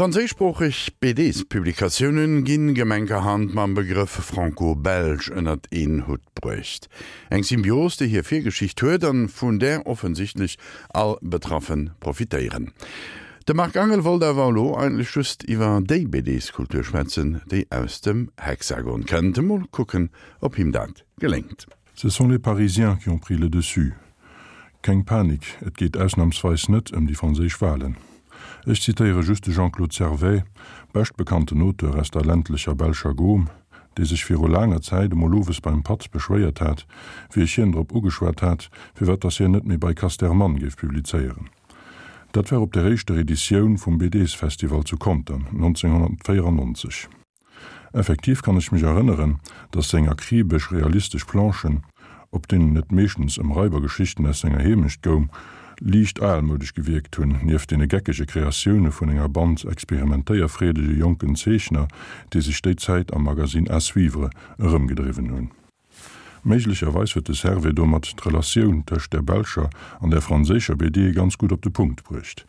Franséischsproocheg BDs-Publikatiounen ginn gemenkerhand mam Begrëff Franco-Belge ënnert een Hutt bruecht. Eng Symbios, déi hir Virgeschicht huet an vun där offensichtlech all Betraffen profitéieren. De Marc Angel wollt awer elo eigentlech just iwwer déi BDs-Kultur schwätzen, déi aus dem Hexagon kënnt. Mol kucken, ob him dat geléngt. Ce sont les Parisiens qui ont pris le dessus. Keng Panik, et geet ausnamsweis net ëm déi franséisch Walen. Ech zitéiere just de Jean-Claude Servais, beschtbekannten Auteur aus der ländlecher belscher Gaume, dee sech viru laanger Zäit emol owes beim Patt beschwéiert hat, wéi ech hien drop ugeschwat hat, firwat dass hien net méi bei Casterman géif publizéieren. Dat war op der éischter Editioun vum BDs-Festival zu Contern 1994. Effektiv kann ech mech erënneren, dass seng akribesch realistesch Planchen, op deenen et meeschtens ëm Raibergeschichten aus senger Heemecht goung, liicht almoudesch gewierkt hunn, nieft deene geckege Kreatioune vun enger Band experimentéierfreedege jonken Zeechner, déi sech déi Zäit am Magasinn À suivre erëmgedriwwen hunn. Méiglecherweis huet de Servais domat d'Relatioun tëscht der belscher an der franséischer BD ganz gutt op de Punkt bruecht.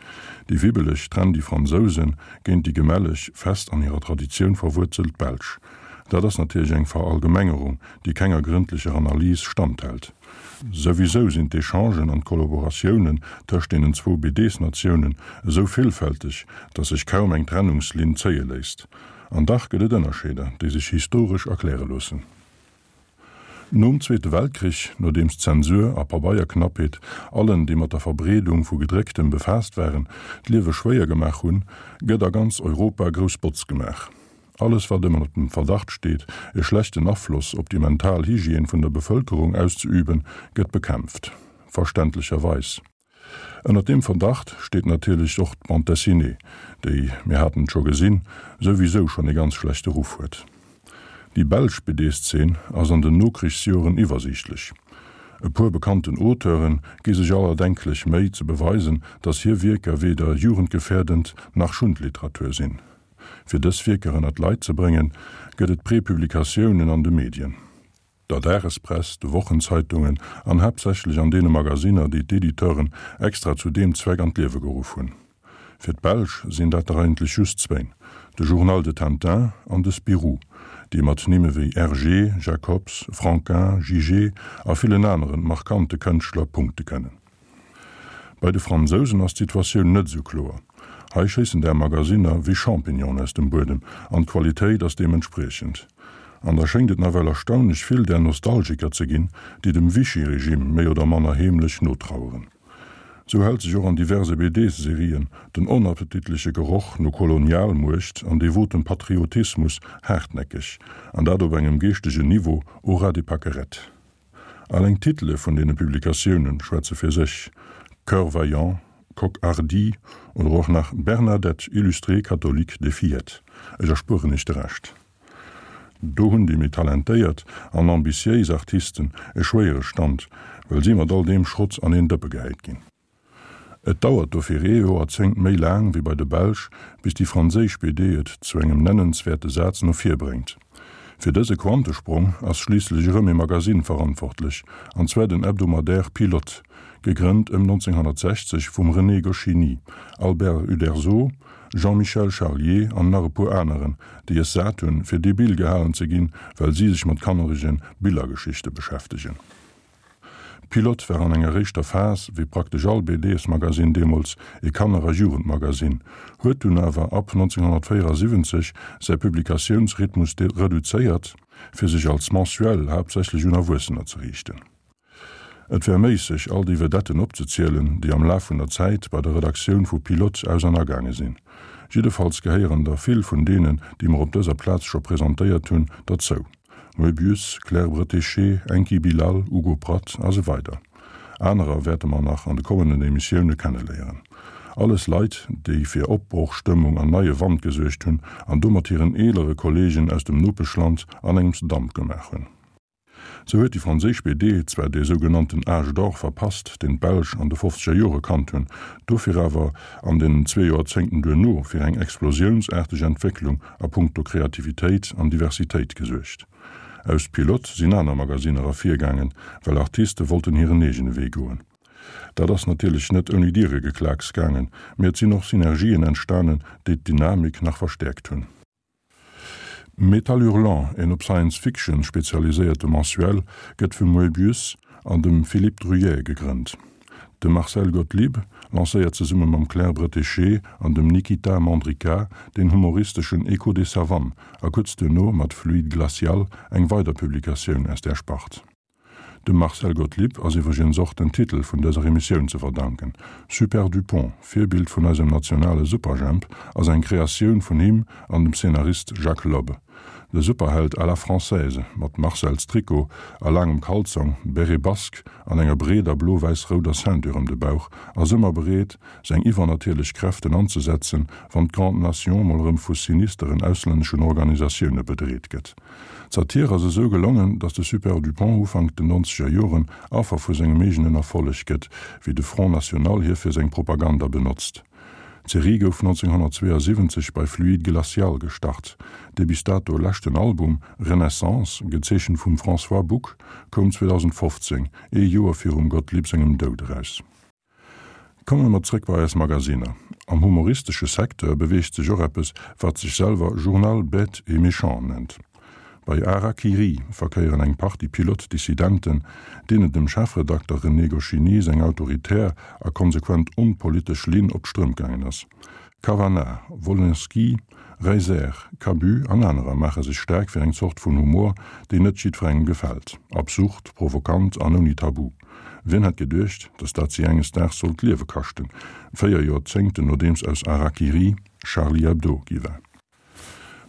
Déi wibbeleg, trendy Fransouse géint déi gemälleg, fest an hirer Traditioun verwuerzelt Belsch. Dat ass natierlech eng Verallgemengerung, déi kenger grëndlecher Analys standhält. Souwisou sinn d'Echangen an d'Kollaboratiounen tëscht deenen zwou BDs-Natiounen esou villfälteg, datt sech kaum eng Trennungslinn zéie léisst. An dach gëtt et Ënnerscheeder, déi sech historesch erkläre loossen. Nom Zweete Weltkrich, nodeems Zensur a Pabeierknappheet allen, déi mat der Verbreedung vu Gedrécktem befaasst waren, d'Liewe schwéier gemaach hunn, gëtt a ganz Europa grouss Botz gemaach. Alles, wat ëmmer dem Verdacht steet, e schlechten Afloss op déi mental Hygiène vun der Bevëlkerung auszeüben, gëtt bekämpft. Verständlecherweis. Ënnert deem Verdacht steet natierlech och d'Bande dessinée, déi, mir haten et scho gesinn, souwisou schonn ee ganz schlechte Ruff huet. Déi belsch BD-Szene ass an den Nokrichsjoren iwwersiichtlech. E puer bekannten Auteure gi sech all erdenklech Méi ze beweisen, datt hir Wierker weder jugendgefährdend nach Schundliteratur sinn. Fir dës Wierker ënnert d'Leit ze bréngen, gëtt et Prepublikatiounen an de Medien. der Dagespress, de Wochenzeitungen an haaptsächlech an deene Magasinner, déi d'Editeuren extra zu deem Zweck an d'Liewe geruff hunn. Fir d'Belsch sinn dat der eigentlech just zwéin, de Journal de Tintin an de Spirou, déi mat Nimme wéi Hergé, Jacobs, Franquin, Jigé a villen aneren markante Kënschtler punkte kënnen. Bei de Fransousen ass d'Situatioun net esou kloer. Hei schéissen där Magasinner wéi Champignonen aus dem Buedem an d'Qualitéit ass deementspriechend. An da schéngt et nawell erstaunlech vill där Nostalgiker ze ginn, déi dem Vichy-Regime méi oder manner heemlech notraueren. Sou hält sech och an diverse BDs-Serien den onappetitleche Geroch no Kolonialmuecht an devotem Patriotismus haartnäckeg, an dat op engem geeschtegen Niveau au ras des pâquerettes. Alleng d'Titele vun deene Publikatioune schwätze fir sech, Cœur vaillant, Coq hardi oder och nach Bernadette, illustrée catholique des fillettes. Ech erspueren iech de Rescht. Do hunn déi méi talentéiert an ambitiéis Artisten e schwéiere Stand, well si mat all deem Schrott an een Dëppe gehäit ginn. Et dauert dofir ee Joerzéngt méi laang wéi bei de Belsch, bis déi franséisch BD et zu engem nennenswäerte Saz no vir bréngt. Fir dëse Quantesprong ass schliisslech erëm ee Magasinn verantwortlech, an zwar den Hebdomadaire Pilote, gegrënnt ëm 1960 vum René Goscinny, Albert Uderzo, Jean-Michel Charlier an nach e puer aneren, déi es sat hunn, fir debil gehalen ze ginn, well si sech mat kannerege Billergeschichte beschäftegen. Pilote war an enger éischter Phas, wéi praktesch all BDs-Magasinn deemools, ee Kanner a Jugendmagasinn, huet dunn awer ab 1974 säi Publikatiounsrhythmus reduzéiert, fir sech als Mensuel haaptsächlech un Erwuessener ze riichten. Et wär méisseg, all déi Vedetten opzezielen, déi am Laf vun der Zäit bei der Redaktioun vu Pilote aus an agaange sinn. Jiddefalls gehéieren der vill vun deenen, déi mer op dëser Plaz scho presentéiert hunn, derzou. Moebius, Claire Bretéché, Enki Bilal, Hugo Pratt a sou weider. Anerer wäerte mer nach an de kommenden Emissioune kenneléieren. Alles Leit, déi fir Opbrochstëmmung an neie Wand gesuergt hunn an domat hiren eelere Kolleegen aus dem Nopeschland an engems Damp gemaach hunn. Sou huet déi franséisch BD zwar dee sougenannten Âge d'or verpasst, deen d'Belsch an de fofzeger Jore kannt hunn, dofir awer an den zwee Joerzéngten duerno fir eng explosiounsaarteg Entwécklung a punkto Kreativitéit an Diversitéit gesuergt. Aus Pilote sinn aner Magasinner ervirgaangen, well Artiste wollten hiren eegene Wee goen. Dat ass natierlech net ouni Dieregeklaaks gaangen, mee et sinn och Synergien entstanen, déi d'Dynamik nach verstäerkt hunn. Métal Hurlant, een op Science Fiction spezialiséierte Mensuel, gëtt vum Moebius an dem Philippe Druillet gegrënnt. De Marcel Gotlib lancéiert zesumme mam Claire Bretéché an dem Nikita Mandryka den humoristeschen Echo des Savanes a kuerz duerno mat Fluide Glacial eng weider Publikatioun aus där Spart. Dem Marcel Gotlib ass iwwregens och den Titel vun dëser Emissioun ze verdanken. Super Dupont, Virbild vun eisem nationale Superjhemp, ass eng Kreatioun vun him an dem Szenarist Jacques Lob. De Superheld à la française, mat Marcelstrikot a laangem Kalzong, Béret basque an enger breeder blo-wäiss-rouder Ceinture ëm de Bauch, ass ëmmer bereet, seng iwwernatierlech Kräften anzesetzen, wann d'Grande Nation mol erëm vu sinisteren auslänneschen Organisatioune bedreet gëtt. D'Satir ass esou gelongen, datt de Super Dupont Ufank den nonzeger Joren Affer vu sengem eegenen Erfolleg gëtt, wéi de Front National hie fir seng Propaganda benotzt. D'Serie gouf 1972 bei Fluide Glacial gestart. Dee bis dato leschten Album, Renaissance, gezeechent vum François Buck, koum 2015, ee Joer virum Gottlieb sengem Doud eraus. Komme mer zréck bei eis Magasinner. Am humoristesche Secteur beweegt sech och eppes, wat sech selwer Journal bête et méchant nennt. Bei Hara-Kiri verkéieren eng Partie Pilot-Dissidenten, deenen dem Chefredakter René Goscinny seng autoritär a konsequent onpolitesch Linn op d'Strëmp gaangen ass. Cavanagh, Wolinski, Reiser, Cabu an anerer maache sech staark fir eng Zort vun Humor, déi net jiddwerengem gefält, absurd, provokant an ouni Tabu. Wien hätt geduecht, datt dat si enges Daags sollt d'Liewe kaschten, 4 Joerzéngten nodeems aus Harakiri Charlie Hebdo gi war.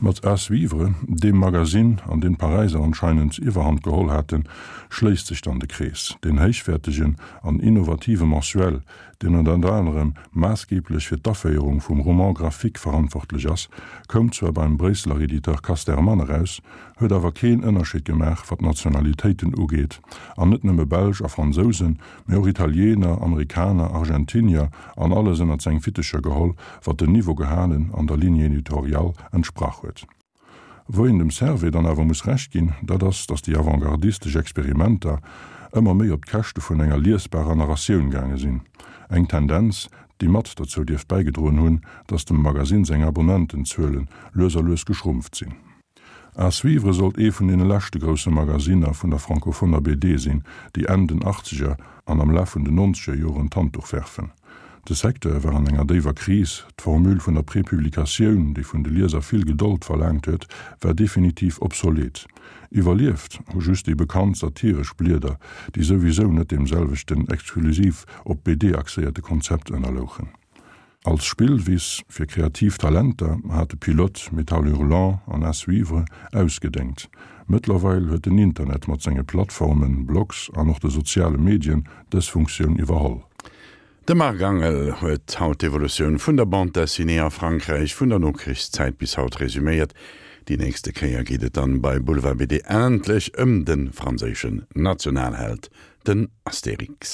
Mat À suivre, deem Magasinn, an deem d'Paräiser anscheinend d'Iwwerhand geholl haten, schléisst sech dann de Krees. Deen héichwäertegen an innovative Mensuel, deen ënnert anerem maassgeeblech fir d'Aféierung vum Roman graphique verantwortlech ass, koum zwar beim Bréisseler Editeur Casterman eraus, huet awer keen Ënnerscheed gemaach, wat d'Nationalitéiten ugeet, an net nëmme Belsch a Fransousen, mee och Italiener, Amerikaner, Argentinier an alles ënnert seng Fittecher geholl, wat den Niveau gehalen an der Ligne éditoriale entsprach huet. Wou een dem Servais dann awer muss Recht ginn, dat ass, datt déi avantgardistesch Experimenter ëmmer méi op d'Käschte vun enger liesbarer Narratioun gaange sinn, eng Tendenz, déi mat derzou dierft bäigedroen hunn, datt dem Magasinn seng Abonnentenzuele lues a lues geschrumpft sinn. À suivre sollt ee vun deene leschte grousse Magasinner vun der francophoner BD sinn, déi Enn den Achtzeger an am Laf vun den nonzeger Joren d'Handduch werfen. De Secteur war an enger déiwer Kris, d'Formule vun der Prepublikatioun, déi vun de Lieser vill Gedold verlaangt huet, war definitiv obsolet. Iwwerlieft hu just déi bekannt satiresch Blieder, déi souwisou net deem selwechten exklusiv op d'BD axéierte Konzept ënnerlouchen. Als Spillwiss fir kreativ Talenter hat de Pilote Métal Hurlant an À suivre ausgedéngt. Mëttlerweil huet den Internet mat senge Plattformen, Blogs an och de soziale Medien dës Funktioun iwwerholl. De Marc Angel huet haut d'Evolutioun vun der Bande dessinée a Frankräich vun der Nokrichszäit bis haut resuméiert. Déi nächste Kéier geet et dann bei Boulevard BD endlech ëm de franséischen Nationalheld, den Astérix.